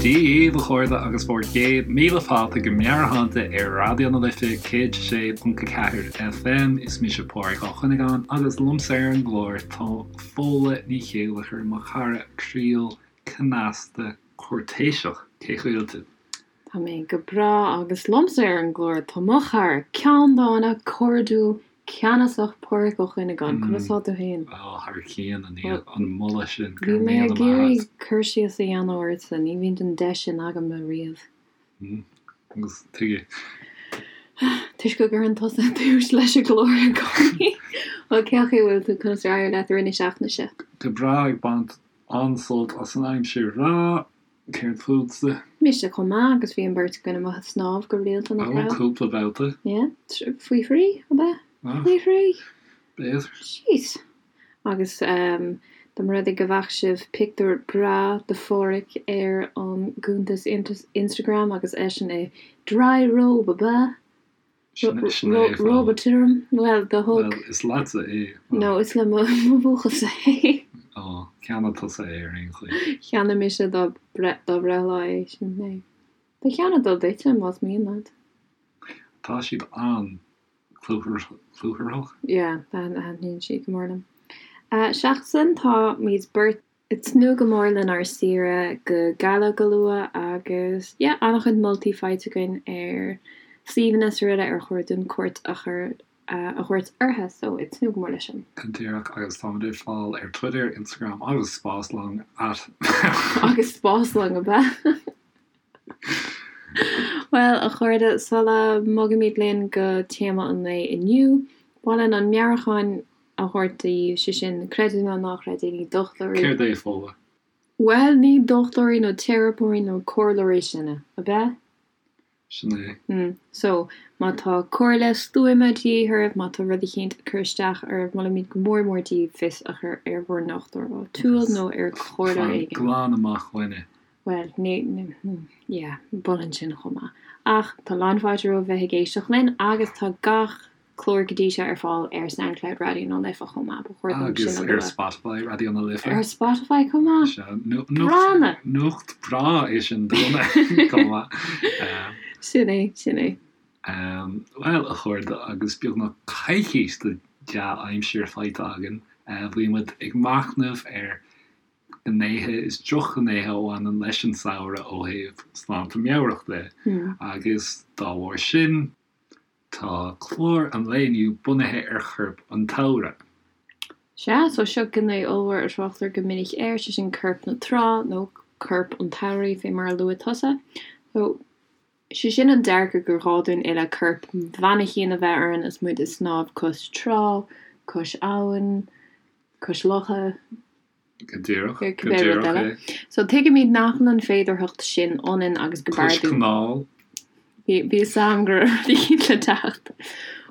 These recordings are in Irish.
Dia dhaoibh, a chairde, agus bhur gcéad míle fáilte go Meabhairshláinte ar Raidió na Life 106.4 FM. Is mise Pádraig Ó Cuinneagáin agus liomsa ar an gclár tá Fódhla Ní Chéilleachair, mo chara croíúil, cneasta, cúirtéiseach. Cén chaoi a bhfuil tú? Tá mé go breá agus liomsa ar an gclár tá mo chara ceanndána, cairdiúil, ceannasach Pádraig Ó Cuinneagáin. Conas tá tú féin? Ó, thar cionn, a Niamh, an moladh sin, go raibh míle maith agat. Bhí mé ag iarraidh cur síos a dhéanamh ortsa, ní bhíonn an deis sin agam riamh. Agus tuige? Toisc go gcuireann tusa tús leis an gclár i gcónaí. Bhuel, cén chaoi a bhfuil tú, conas ar éirigh leat i rith na seachtaine seo? Go breá, ag baint an-sult as an aimsir bhreá. Céard fútsa? Mise chomh maith, agus bhí an bheirt againn amuigh ag snámh go rialta, nach raibh? Ó, cúpla babhta. Yeah, faoi thrí, ab ea? Faoi thrí? B'fhéidir. Jeez. Agus dá mba rud é go bhfaca sibh pictiúr breá de Pháraic ar an gcuntas Instagram agus eisean i dry robe, ab ea? Róba tirim? Bhuel, do thug. Bhuel, is leatsa é. No, is le mo bhuachaill-sa é. Ó, cheannaigh tusa é ar aon chaoi. Cheannaigh mise dá breithlá é, sin é. Ba cheannaigh dó duitse, más mian leat. Tá siad an-chlúmhach. Yeah, thaitníonn siad go mór liom. Seachas sin, táimid beirt. Ag tnúth go mór lenár saoire go Gaillimh go luath agus yeah an-chuid moltaí faighte againn ar suíomhanna is araile ar chóir dúinn cuairt a chur a thabhairt orthu so ag tnúth go mór leis sin. Go díreach agus táimid ar fáil ar Twitter, Instagram agus Spáslong at. Agus Spáslong ab ea? Bhuel a chairde, sula mbogaimid linn go téama an lae inniu, ba mhaith linn an meabhrúchán a thabhairt daoibh, sé sin, creid é nó ná creid é, ní dochtúirí. Céard é, Fódhla? Bhuel, ní dochtúirí nó teiripeoirí nó comhairleoirí sinne, ab ea? Sin é. Mm. So, má tá comhairle stuama de dhíth oraibh, má tá rud eicínt ag cur isteach oraibh, molaimid go mór mór daoibh fios a chur ar bhur ndochtúir áitiúil nó ar chomhairleoir Fan éigin. glan amach uainne. Bhuel, ní, yeah, mholfainn sin chomh maith. Ach tá lán fáilte romhaibh bheith ag éisteacht linn agus tá gach clár go dtí seo ar fáil ar Soundcloud Raidió na Life chomh maith, ba chóir dom sin a Agus ar lua. Spotify Raidió na Life. Ar Spotify chomh maith? Sea, Gránna! nuacht breá é sin dúinne chomh maith. Sin é, sin é. Bhuel, a chairde, agus beagnach coicís de dea-aimsir faighte againn, bhí muid ag machnamh ar ghnéithe is drochghnéithe a bhaineann leis an samhradh ó thaobh sláinte meabhrach de, agus dá bharr sin, Tá clár an lae inniu bunaithe ar chorp an tsamhraidh. Sea, so seo gné ollmhór a thráchtar go minic air, sé sin corp na trá, nó corp an tsamhraidh, fé mar a luaigh tusa. So, sé sin an dearcadh gur gá dúinn uile corp mhainicín a bheith orainn is muid ag snámh cois trá, cois abhann, cois locha. Go díreach, go cibé rud díreach eile. é. So tuigimid nach bhfuil an féidearthacht sin ionainn agus go Cois b'fhearr dúinn. canáil. Bhí bhí fhios a'm go raibh rud eicínt le teacht.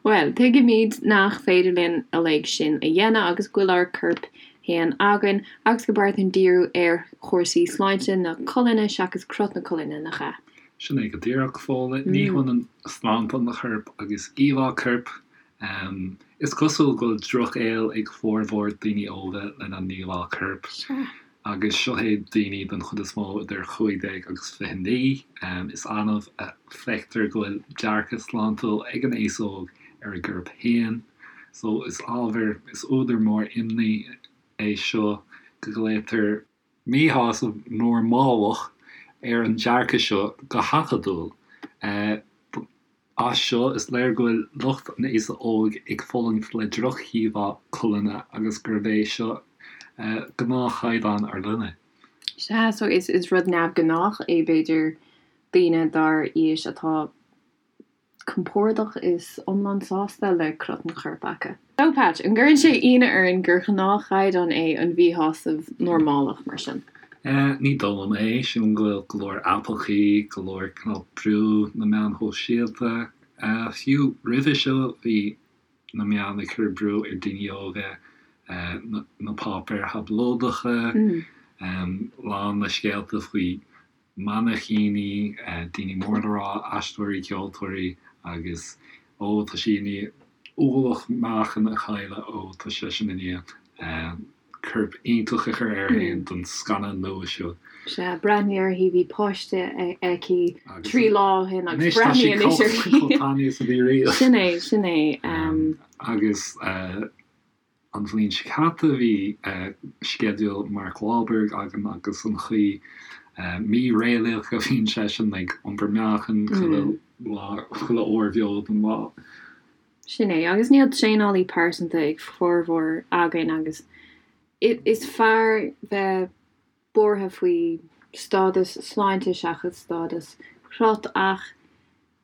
Bhuel, tuigimid nach féidir linn uilig sin a dhéanamh agus go bhfuil ár gcoirp féin againn agus go b'fhearr dúinn díriú ar chúrsaí sláinte na colainne seachas crot na colainne, nach ea? Sin é go díreach, Fódhla. Ní hionann sláinte an choirp agus íomhá coirp. Is cosúil go bhfuil drochghaol ag formhór daoine óga lena n-íomhá coirp, agus seo é daoine den chuid is mó idir 15 agus 29. Is annamh a feictear go bhfuil dearcadh sláintiúil ag an aos óg ar a gcorp féin. So is ábhar, is údar mór imní é seo go nglaotar míshásamh normálach ar an dearcadh seo go hacadúil. As seo, is léir go bhfuil lucht an aosa óig ag fulaingt le drochíomhá colainne agus gurb é seo gnáthchaighdeán ár linne. Sea, so is rud neamhghnách é b'fhéidir daoine dár aois atá compordach is iomlán sásta le crot an choirp acu. So, Patch, an gcuireann sé ionadh orainn gur ghnáthchaighdeán é an mhíshásamh normálach mar sin? Ní dóigh liom é. Sílim go bhfuil go leor aipeachaí, go leor cineál brú na meáin shóisialta. Fiú roimhe seo bhí na meáin ag cur brú ar daoine óga, na páipéir thablóideacha, lán le scéalta faoi mainicíní, daoine mór le rá, aisteoirí, ceoltóirí agus ó tá sí i ndiaidh ualach meáchain a chailleadh, ó tá seisean i ndiaidh. Corp iontach a chur air féin don scannán nua seo. Sea, breathnaigh uirthi, bhí páiste aici 3 lá ó shin agus breathnaigh anois uirthi. Anois tá sí chomh tanaí is a bhí riamh. Sin é, sin é. Agus an bhliain seo caite bhí sceideal Mark Wahlberg againn agus an chaoi mí-réalaíoch a bhíonn seisean ag iompar meáchain chuile lá, chuile uair bheo den lá. Sin é, agus níl traenálaí pearsanta ag formhór againn agus is fearr bheith buartha faoi stádas sláinte seachas stádas crot ach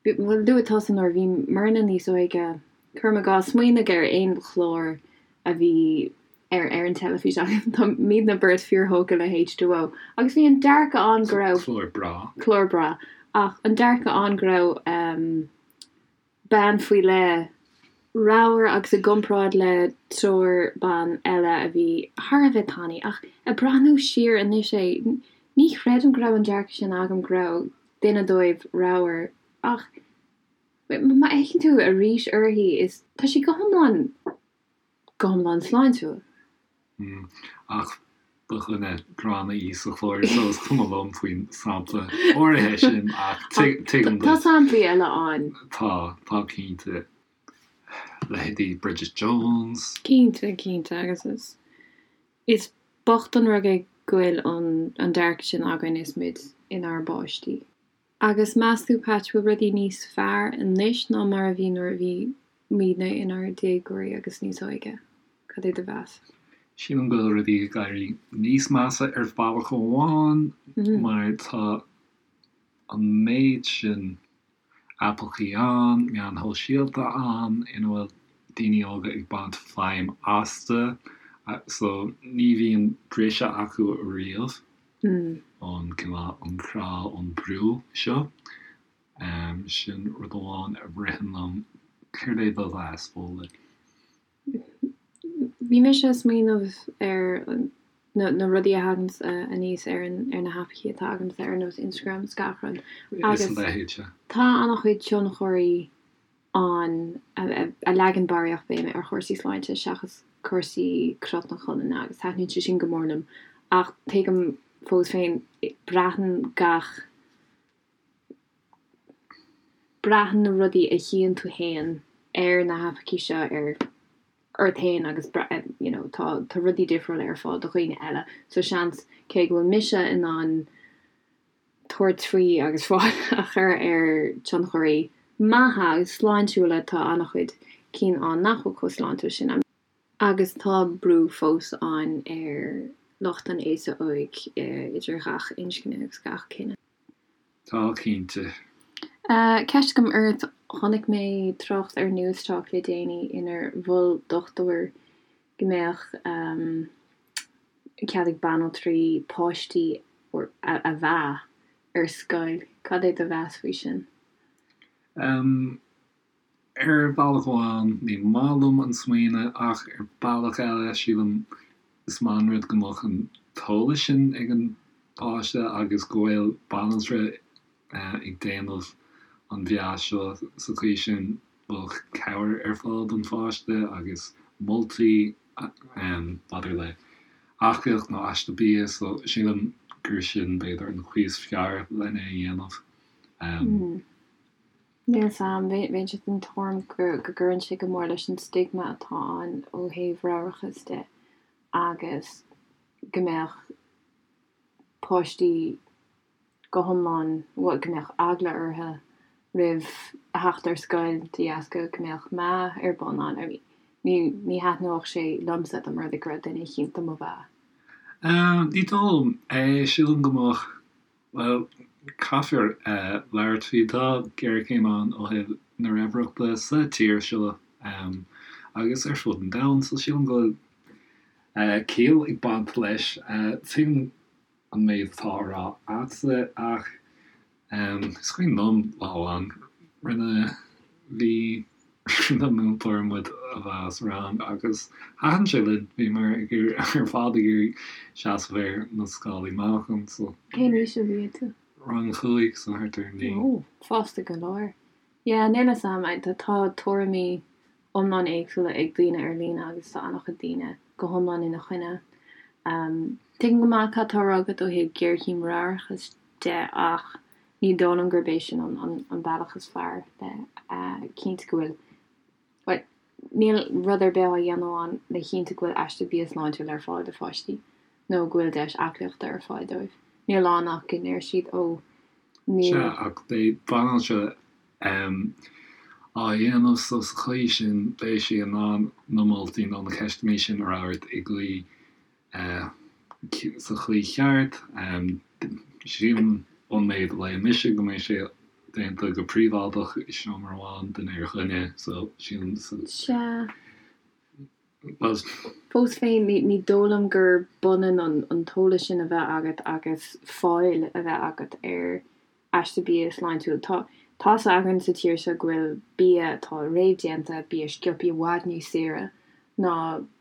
bhuel luaigh tusa nuair a bhí muidne níos óige, cuirim i gcás, smaoinigh ar aon chlár a bhí ar ar an teilifís againn, tá muidne beirt fíorthógtha le H2O agus bhí an dearcadh ann go raibh. Clár breá. Clár breá ach an dearcadh ann go raibh bean faoi leith ramhar agus i gcomparáid le triúr ban eile a bhí thar a bheith tanaí. Ach ag breathnú siar anois é, ní chreidim go raibh an dearcadh sin agam go raibh duine dóibh ramhar. Ach má fhéachann tú arís uirthi is tá sí go hiomlán go hiomlán sláintiúil. Ach ba dhuine gránna í sa chlár so is cuma liom faoin sampla áirithe sin ach tuigim duit. Tá samplaí eile ann. Tá, tá cinnte. Leithéidí Bridget Jones. Cinnte, cinnte agus is, is bocht an rud é go bhfuil an dearcadh sin againn is muid inár bpáistí. Agus meas tú, Patch, bhfuil rudaí níos fearr anois ná mar a bhí nuair a bhí muidne inár déagóirí agus níos óige? Cad é do mheas? Sílim go bhfuil rudaí ag éirí níos measa ar bhealach amháin mar tá an méid sin aipeachaí ann, meáin shóisialta ann ina bhfuil daoine óga ag baint feidhm astu so ní bhíonn briseadh acu ariamh. ón cineál, an crá, ón brú seo. Sin rud amháin a ritheann liom. Céard é do mheas, Fódhla? Bhí mise ag smaoineamh ar na rudaí a thaganns aníos ar na haipeachaí atá agamsa ar nós Instagram is gach rud. Agus a leithéid, sea. Tá an-chuid tionchairí ann a leagann barraíocht béime ar chúrsaí sláinte seachas cúrsaí crot na colainne agus taitníonn sé sin go mór liom ach tuigim fós féin braitheann gach braitheann na rudaí a chíonn tú féin ar na haipeachaí seo ar ort féin agus you know tá tá rudaí difriúla ar fáil do dhaoine eile so seans cé go bhfuil mise in ann tabhairt faoi agus fáil a chur ar tionchairí maithe agus sláintiúla, tá an-chuid cinn ann nach bhfuil chomh sláintiúil sin. Agus tá brú fós ann ar lucht an aosa óig idir ghach inscne agus gach cine. Tá, cinnte. Ceist agam ort, chonaic mé trácht ar Newstalk le déanaí inar mhol dochtúir go mbeadh cead ag banaltraí páistí a mheá ar scoil. Cad é do mheas faoi sin? Ar bhealach amháin, ní maith liom an smaoineamh ach ar bealach eile, sílim is maith an rud go mbeadh an t-eolas sin ag an bpáiste agus go bhfuil banaltra ag déanamh an mheá seo sa chaoi sin bheadh cabhair ar fáil don pháiste agus moltaí maidir le aclaíocht nó aiste bia so sílim gur sin b'fhéidir an chaoi is fearr lena dhéanamh. Níl 'fhios a'm, bheinnse den tuairim go gcuireann sé go mór leis an stigma atá ann ó thaobh ramhrachas de agus go mbeadh páistí go hiomlán, bhuel, go mbeadh eagla orthu roimh a theacht ar scoil de dheasca go mbeadh meá ar bun ann. I mean, ní, ní thaitneodh sé liomsa dá mba rud é go raibh duine eicínt do mo mheá. Ní dóigh liom é. Sílim go mbeadh, bhuel, caithfear labhairt faoi. Tá géarchéim ann ó thaobh na raimhreachta sa tír seo agus ar fud an domhain, so sílim go bhfuil ciall ag baint leis. Tuigim an méid atá á rá a'dsa ach is cuimhin liom lá amháin rinne bhí rinne múinteoir muid a mheá sa rang agus thaitin sé linn, bhíomar ag iarraidh ar fad ag iarraidh seasamh ar na scálaí meáchain so. Cén aois a bhí tú? Rang 5 so thart ar 9. Ó, fásta go leor. Yeah, níl 'fhios a'm, tá tuairimí iomlán éagsúla ag daoine ar líne agus tá an-chuid daoine go hiomlán ina choinne. Tuigim go maith cad tá á rá agat ó thaobh géarchéim mheabhrachais de ach ní dóigh liom gurb é sin an bealach is fearr le cinntiú go bhfuil, bhuel, níl rud ar bith á dhéanamh ann le chinntiú go bhfuil aiste bia sláintiúil ar fáil do pháistí nó go bhfuil deis aclaíochta ar fáil dóibh. Níl ann ach go ndeir siad, ó, níl. Sea, ach beidh banaltra á dhéanamh so sa chaoi sin beidh sí in ann na moltaí nó na ceisteanna sin a fhreagairt i gcaoi sa chaoi cheart. Sílim ón méid a léigh mise go mbeidh sé déanta go príobháideach i seomra amháin duine ar dhuine so sílim sa Sea. bhuel. Fós féin, ní dóigh liom gur b'ionann an t-eolas sin a bheith agat agus fáil a bheith agat ar aiste bia sláintiúil. Tá tá's againn sa tír seo go bhfuil bia atá réamhdhéanta, bia sciobtha i bhfad níos saoire ná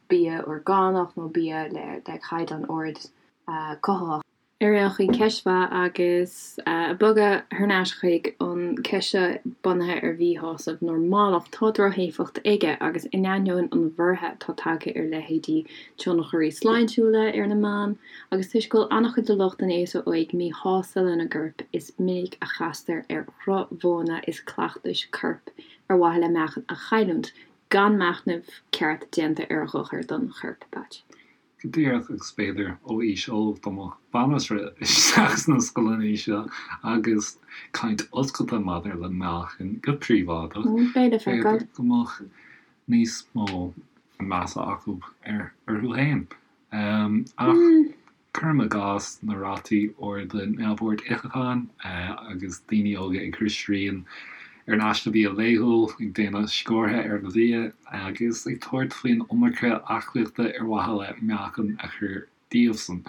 bia orgánach nó bia le caighdeán ard cothaitheach. Ar aon chaoi, ceist mhaith agus ag bogadh thar n-ais chuig an ceist seo bunaithe ar mhíshásamh normalach, tá drochéifeacht aige agus in ainneoin an bhorrtha atá tagtha ar leithéidí tionchairí sláintiúla ar na meáin, Agus toisc go bhfuil an-chuid de lucht an aosa óig míshásta lena gcorp, is minic a chastar ar dhroch-mhodhanna is cleachtais coirp ar mhaithe le meáchan a chailliúint, gan machnamh ceart déanta ar a dhochar don chorp. Patch. Go díreach, agus b'fhéidir ó aois óg dá mbeadh banaltra isteach sna scoileanna seo agus caint oscailte maidir le meáchan go príobháideach, Beidh le feiceáil. b'fhéidir go mbeadh níos mó measa acu orthu féin. Ach cuirim i gcás na rátaí arda neamhord itheacháin agus daoine óga ag cur srian ar an aiste bia laethúil, ag déanamh sciúrtha ar an bhia agus ag tabhairt faoin iomarca aclaíochta ar mhaithe le meáchan a chur díobhsan.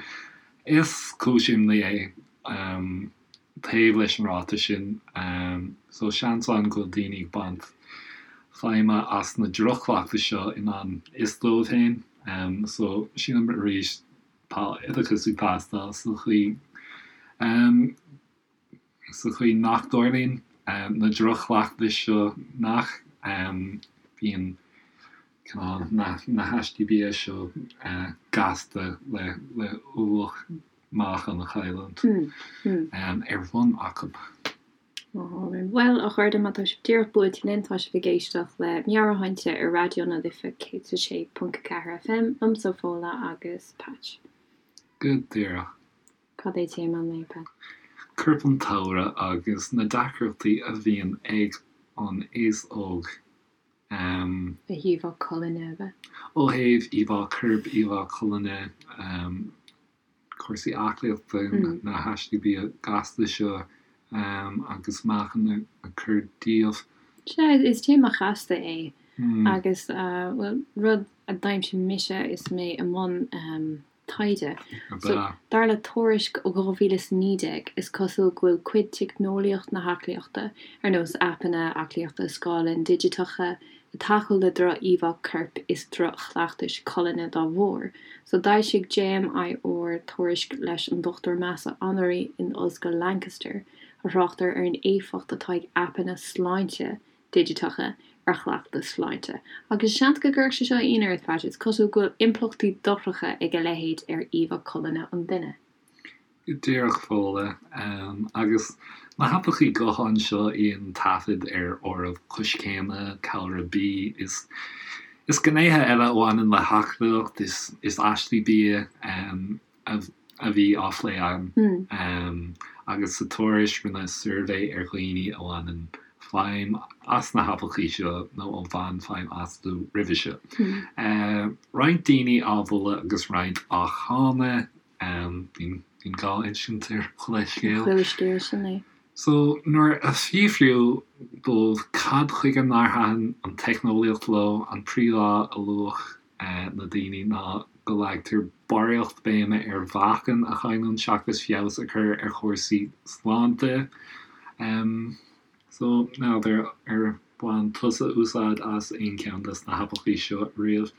Is cúis imní é. Taobh leis an ráta sin, so seans ann go bhfuil daoine ag baint feidhme as na droch-chleachtais seo i ngan fhios dóibh féin. So sílim arís tá oideachas ag teastáil sa chaoi sa chaoi nach dtarlaíonn na droch-chleachtais seo nach bíonn cineál na haistí bia seo gasta le le ualach meáchan a chailliúint ar bun acu. Bhuel, a chairde, má tá sibh díreach buailte linn, tá sibh ag éisteacht le Meabhairshláinte ar Raidió na Life 106.4 FM, liomsa Fódhla agus Patch. Go díreach. Cad é téama an lae, Patch? Corp an tsamhraidh agus na deacrachtaí a bhíonn ag an aos óg. Ó thaobh colainne, ab ea? Ó thaobh íomhá coirp, íomhá colainne, cúrsaí aclaíochta, na haistí bia gasta seo agus meáchan a chur díobh. Sea, is téama chasta é agus, bhuel, rud a d'aimsigh mise is mé i mbun taighde. So, dar le tuairisc ó 2019, is cosúil go bhfuil cuid teicneolaíocht na haclaíochta, ar nós aipeanna aclaíochta scáileáin digiteacha, ag tacú le droch-íomhá coirp is droch-chleachtais colainne dá bharr. So, d'fhoilsigh JMIR tuairisc leis an Dr Mahsa Anwari in Ollscoil Lancaster, a thráchtar ar an éifeacht atá ag aipeanna sláinte digiteacha ar chleachtais sláinte. Agus seans go gcuirfeadh sé seo ionadh ort, Pat, is cosúil go bhfuil impleachtaí dochracha ag a leithéid ar íomhá colainne an duine. Go díreach, Fódhla. Agus na haipeachaí gutháin seo a dhéanann taifead ar áireamh coiscéime, calra B, is is gnéithe eile a bhaineann le haclaíocht is is aistí bia a bhí á phlé ann. Agus sa tuairisc rinneadh suirbhé ar dhaoine a bhaineann feidhm as na haipeachaí seo nó a bhain feidhm astu roimhe seo. Roinnt daoine á mholadh agus roinnt á cháineadh. Bíonn dhá insint ar chuile scéal. Chuile scéal, sin é. So, nuair a fiafraíodh dóibh cad chuige nár thaitin an teicneolaíocht leo, an príomhfháth a luaigh na daoine ná go leagtar barraíocht béime ar mheáchan a chailliúint seachas feabhas a chur ar chúrsaí sláinte. So, n'fheadar ar bhain tusa úsáid as aon cheann des na haipeachaí seo riamh?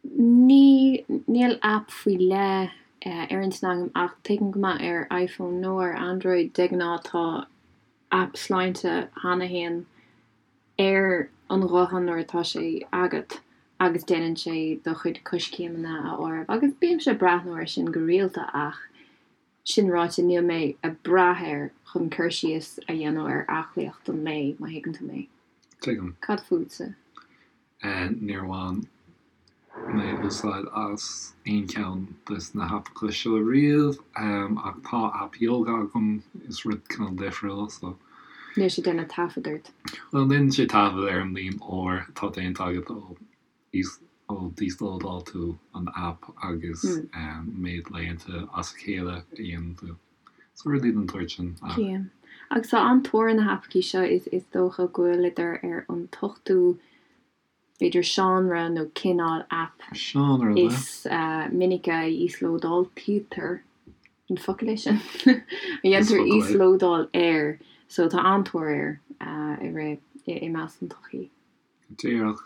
Ní, níl aip faoi leith ar intinn agam ach tuigim go maith ar iPhone nó ar Android de ghnáth tá aip sláinte cheana féin ar an ghuthán nuair atá sé agat. Agus déanann sé do chuid coiscéimeanna a áireamh agus bímse ag breathnú air sin go rialta ach sin ráite níl mé ag brath air chun cur síos a dhéanamh ar aclaíocht an lae, má thuigeann tú mé. Tuigim. Cad fútsa? Níor bhain mé úsáid as aon cheann des na haipeacha seo riamh ach tá aip yoga agam, is rud cineál difriúil so. Níl sé ag déanamh taifead ort. Bhuel, déanann sé taifead ar an líon uair atá déanta agat ó ó d'íoslódáil tú an aip agus méid laethanta as a chéile a dhéanann tú. So rudaí den tsórt sin ach. Cian. Agus tá an-tóir ar na haipeachaí seo, is dócha go bhfuileadar ar an t-ochtú b'fhéidir seánra nó cineál aip Seánra, is minice a íoslódáiltítear, an focal é sin? a dhéantar íoslódáil air, so tá an-tóir air i rith, i measc an tsochaí. Díreach.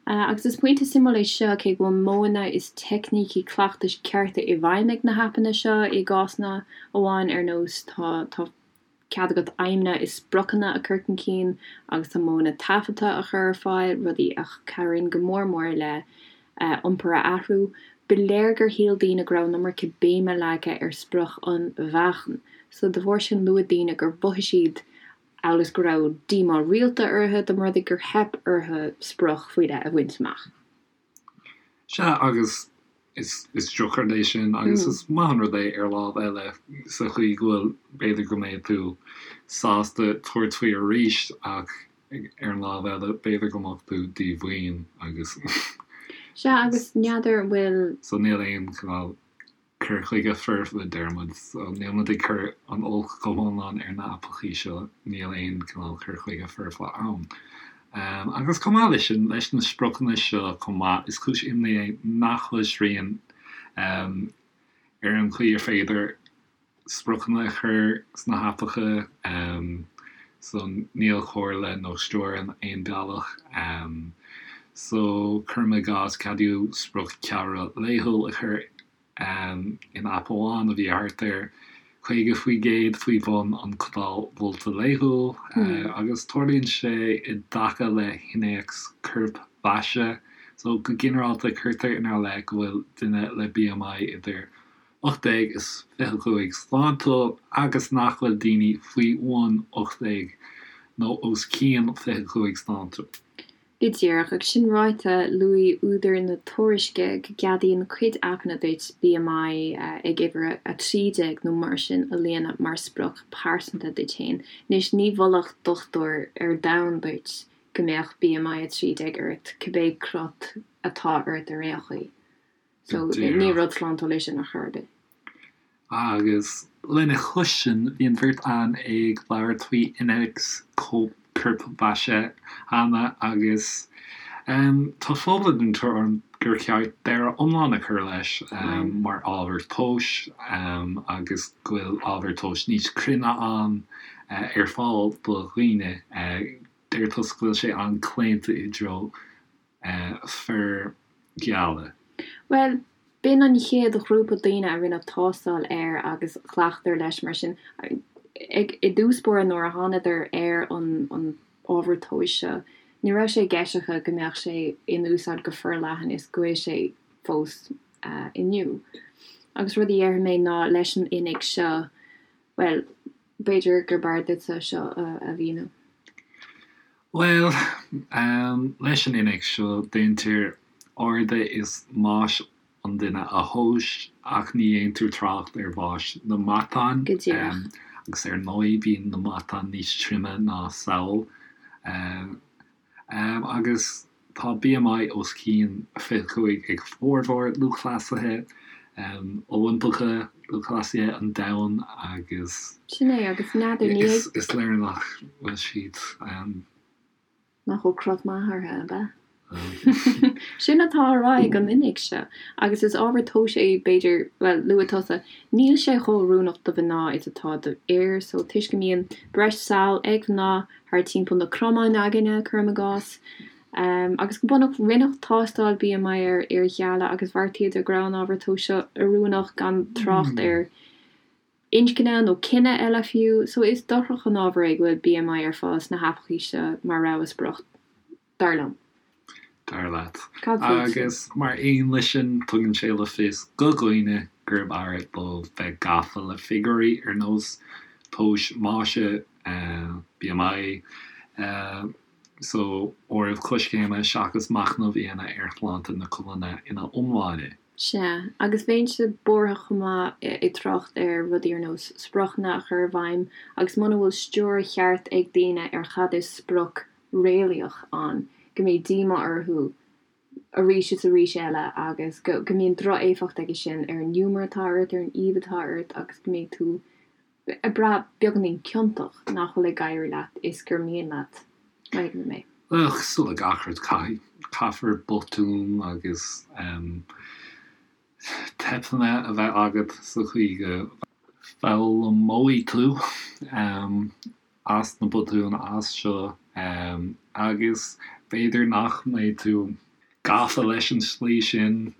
Agus is pointe suimiúil é seo, cé go bhfuil modhanna is teicnící cleachtais cearta i bhfeidhm ag na haipeanna seo i gcásanna amháin, ar nós tá, tá. cead agat aidhmeanna is spriocanna a chur chun cinn agus tá modhanna taifeadta a chur ar fáil, rudaí a chabhraíonn go mór mór le iompar a athrú. Ba léir gur shíl daoine go raibh an iomarca béime leagtha ar sprioc an mheáchain, so de bharr sin luaigh daoine gur mhothaigh siad amhail is go raibh díomá rialta orthu dá mba rud é gur theip orthu sprioc faoi leith a bhaint amach. Sea, agus is drochrud é sin agus is maith an rud é ar lámh eile sa chaoi go bhfuil, b'fhéidir go mbeidh tú sásta tabhairt faoi arís ach ar an lámh eile b'fhéidir go mbeadh tú díomhaoin agus. Sea, agus n'fheadar an bhfuil. So níl aon chineál cur chuige foirfe, deir muid. So níl muid ag cur an olc go hiomlán ar na haipeachaí seo, níl aon cineál cur chuige foirfe ann. Agus chomh maith leis sin, leis na spriocanna seo chomh maith, is cúis imní é nach bhfuil srian ar an chaoi ar féidir spriocanna a chur sna haipeacha, so níl comhairle nó stiúir in aon bealach. So cuirim i gcás, ceadaíodh sprioc ceallra laethúil a chur in aip amháin a bhí thart ar 50% faoi bhun an codáil mholta laethúil, agus tarlaíonn sé i dtaca le hinnéacs corpmhaise. So go ginearálta cuirtear inár leith go bhfuil duine le BMI idir 18 is 25 sláintiúil agus nach bhfuil daoine faoi bhun 18 nó os cionn 25 sláintiúil. Go díreach. Agus sin ráite, luaigh údair na tuairisce go gceadaíonn cuid aipeanna duit BMI ag uimhir 13 nó mar sin a líonadh mar sprioc pearsanta duit féin. Anois, ní mholfadh dochtúir ar domhan duit go mbeadh BMI 13 ort, cibé crot atá ort ar aon chaoi. So, ní rud sláintiúil é sin ar chor ar bith. Agus lena chois sin, bhí an bheirt againn ag labhairt faoi innéacs corpmhaise cheana agus tá Fódhla den tuairim gur cheart deireadh iomlán a chur leis mar ábhar tomhais agus go bhfuil ábhar tomhais níos cruinne ann ar fáil do dhaoine. Deir tusa go bhfuil sé an-claonta i dtreo fir gheala. Bhuel, b'in an chéad ghrúpa daoine a rinneadh tástáil air agus ghlacadar leis mar sin. I dtús báire nuair a thánadar ar an ábhar tomhais seo, ní raibh sé i gceist acu go mbeadh sé in úsáid go forleathan is go bhfuil sé fós inniu. Agus rud a dhéarfaidh mé ná leis an innéacs seo, bhuel, b'fhéidir gur b'fhearr duitse seo a mhíniú. Bhuel, leis an innéacs seo, déantar airde is mais an duine a thomhas, ach ní dhéantar trácht ar mhais na matán. Go díreach. Agus ar ndóigh, bíonn na matáin níos troime ná samhail. Agus tá BMI os cionn 25 ag formhór lúthchleasaithe Oilimpeacha, lúthchleasaithe an domhain agus. Sin é, agus n'fheadar, ní. Is léir nach bhfuil siad. Nach bhfuil crot maith orthu, ab ea? Sin atá á rá ag an innéacs seo, agus is ábhar tomhais é, b'fhéidir, bhuel, luaigh tusa, níl sé chomh oiriúnach do mhná is atá do fhir, so toisc go mbíonn breis sall ag mná thar timpeall na cromáin againne, cuirim i gcás. Agus go bunúsach, rinneadh tástáil BMI ar fhir gheala agus bheartaíodar go raibh an ábhar tomhais seo oiriúnach gan trácht ar inscne nó cine eile fiú. So is dochrach an ábhar é go bhfuil BMI ar fáil sna haipeachaí seo mar rogha sprioc, dar liom. Dar leat. Cad fútsa? Agus mar aon leis sin, tugann sé le fios do dhaoine gurb fhearr dóibh bheith gafa le figiúirí ar nós tomhais maise, BMI, san áireamh coiscéime seachas machnamh a dhéanamh ar shláinte na colainne ina iomláine. Sea, agus bheinnse buartha chomh maith ag trácht ar rudaí ar nós spriocanna a chur i bhfeidhm agus muna bhfuil stiúir cheart ag daoine ar chad is sprioc réalaíoch ann, go mbeidh díomá orthu arís is arís eile agus go go mbíonn droch-éifeacht aige sin ar an ngiúmar atá ort, ar an aoibh atá ort agus go mbeidh tú ag brath beagáinín ciontach nach bhfuil ag éirí leat is gur mian leat. Má thuigeann tú mé. Bhuel, cosúil le gach rud, caithfidh, caithfear botúin agus teipeanna a bheith agat sa chaoi go bhfoghlaimeoidh tú as na botúin as seo agus b'fhéidir nach mbeidh tú gafa leis an slí sin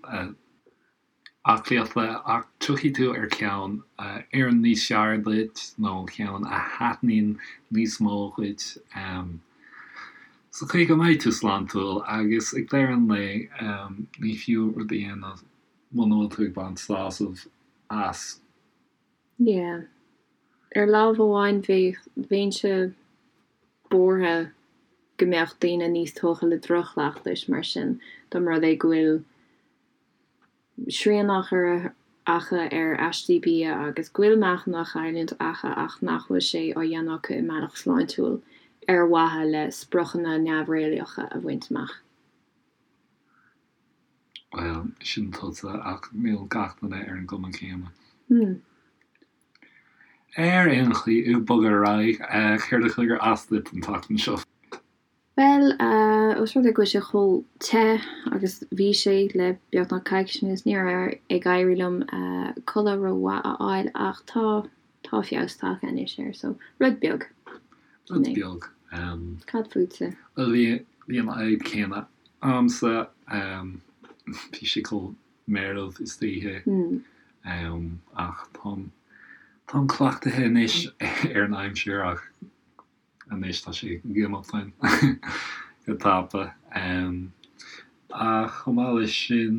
aclaíochta ach tiocfaidh tú ar cheann a oireann níos fearr duit nó ceann a thaitníonn níos mó dhuit sa chaoi go mbeidh tú sláintiúil agus ag deireadh an lae ní fiú rud a dhéanamh muna bhfuil tú ag baint sásamh as. Yeah. Ar lámh amháin bheadh, bheinnse buartha go mbeadh daoine níos tógtha le droch-chleachtais mar sin dá mba rud é go bhfuil srian á chur acu ar aistí bia agus go bhfuil meáchan á chailliúint acu ach nach bhfuil sé á dhéanamh acu i mbealach sláintiúil ar mhaithe le spriocanna neamhréalaíocha a bhaint amach. Bhuel, sin tusa, ach níl gach duine ar an gcuma chéanna. Ar aon chaoi, ag bogadh ar aghaidh, céard a chuir as duit an tseachtain seo? Bhuel, ós rud é go bhfuil sé chomh te agus bhí sé le beagnach coicís anuas, ní raibh ag éirí liom codladh rómhaith a fháil ach tá, tá feabhas tagtha anois air, so rud beag. Rud beag. Cad fútsa? Bhuel, bhí, bhí an fhadhb chéanna a'msa, bhí sé chomh meirbh istoíche, ach táim, táim cleachtaithe anois ar an aimsir ach Anois tá sé ag imeacht uainn go tapa. Ach chomh maith leis sin,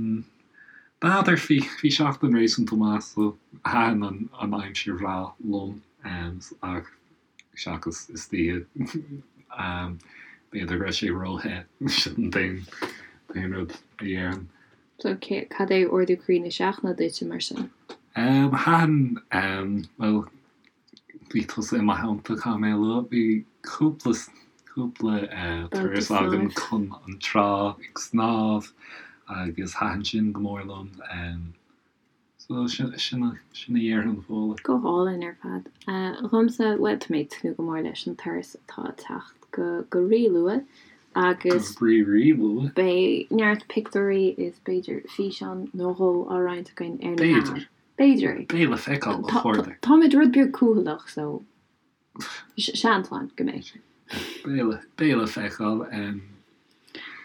n'fheadar, bhí bhí seachtain réasúnta maith so thaitin an an aimsir bhreá liom ach seachas istoíche b'fhéidir go raibh sé róthe, sin an t-aon t-aon rud a dhéarfainn. So cad é ardú croí na seachtaine duitse mar sin? Thaitin, bhuel, Bhí tusa i mo theannta, caithfidh mé a lua. Bhí cúpla, cúpla turas agam chun an trá ag snámh agus thaitin sin go mór liom. So sin, sin a dhéarfainn, Fódhla. Go hálainn ar fad. Dhomsa, bhuel, tá mé ag tnúth go mór leis an turas atá ag teacht go, go rí-luath agus. Go rí-rí-luath. Beidh neart pictiúirí is b'fhéidir físeán nó dhó á roinnt againn ar na meáin. B'fhéidir. B'fhéidir. Beidh le feiceáil, a chairde. Táimid rud beag cúthaileach so seans ann go mbeidh. Beidh le feiceáil.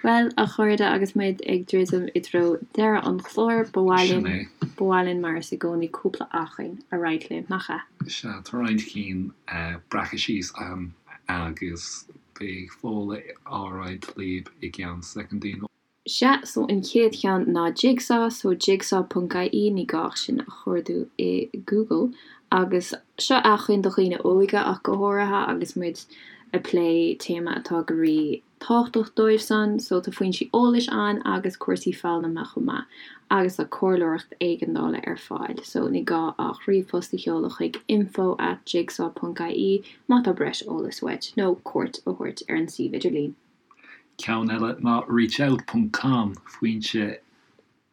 Bhuel, a chairde, agus muid ag druidim i dtreo deireadh an chláir, ba mhaith linn, ba mhaith linn mar is i gcónaí cúpla acmhainn a roinnt libh, nach ea? Sea, tá roinnt cinn breactha síos agam agus beidh Fódhla á roinnt libh i gceann soicindí. Sea, so an chéad cheann ná Jigsaw, so jigsaw ponc ie, ní gá ach sin a chuardú i Google. Agus seo acmhainn do dhaoine óga ach go háirithe agus muid ag plé téama atá go rí tábhachtach dóibh san, so tá foinsí eolais ann agus cúrsaí foghlama chomh maith agus tá comhairleoireacht éigeandála ar fáil, so ní gá ach ríomhphost a sheoladh chuig info at jigsaw ponc ie má tá breis eolais uait nó cuairt a thabhairt ar an suíomh idirlín. Ceann eile ná reachout ponc com, foinse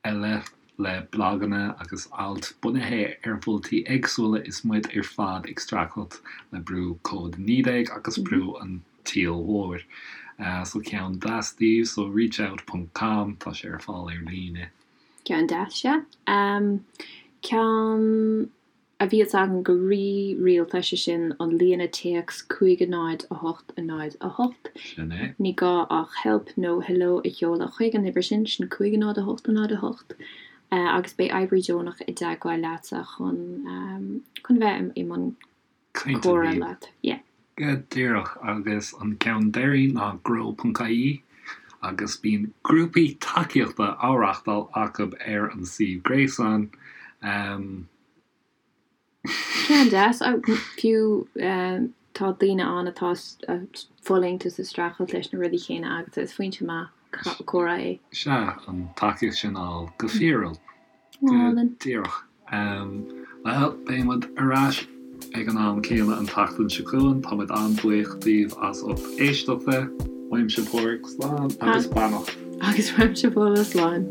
eile le blaganna agus ailt bunaithe ar mholtaí éagsúla is muid ar fad ag streachailt le brú Covid-19 agus brú an tsaoil mhóir. So ceann deas daoibh, so reachout ponc com, tá sé ar fáil ar líne. Ceann deas, sea. Ceann. a bhíos agam go rí-rialta, sé sin an líne téacs 5 0 8 0 8. Sin é. Ní gá ach help nó hello a sheoladh chuig an uimhir sin, sin 5 0 8 0 8, agus beidh oibrí deonach i dteagmháil leatsa chun chun bheith i mbun comhrá leat. Yeah. Go díreach, agus an ceann deiridh ná grow.ie. Agus bíonn grúpaí tacaíochta á reáchtáil acu ar an suíomh gréasáin. Ceann deas. Fiú tá daoine ann atá ag fulaingt is ag streachailt leis na rudaí céanna agatsa. Is foinse maith comhrá é. Sea, an tacaíocht sin a fháil go fíorúil. Go díreach. Bhuel, beidh muid ar ais ag an am céanna an tseachtain seo chugainn. Tá muid an-bhuíoch daoibh as ucht éisteachta. Uaimse Páraic, slán agus beannacht. Agus uaimse Fódhla, slán.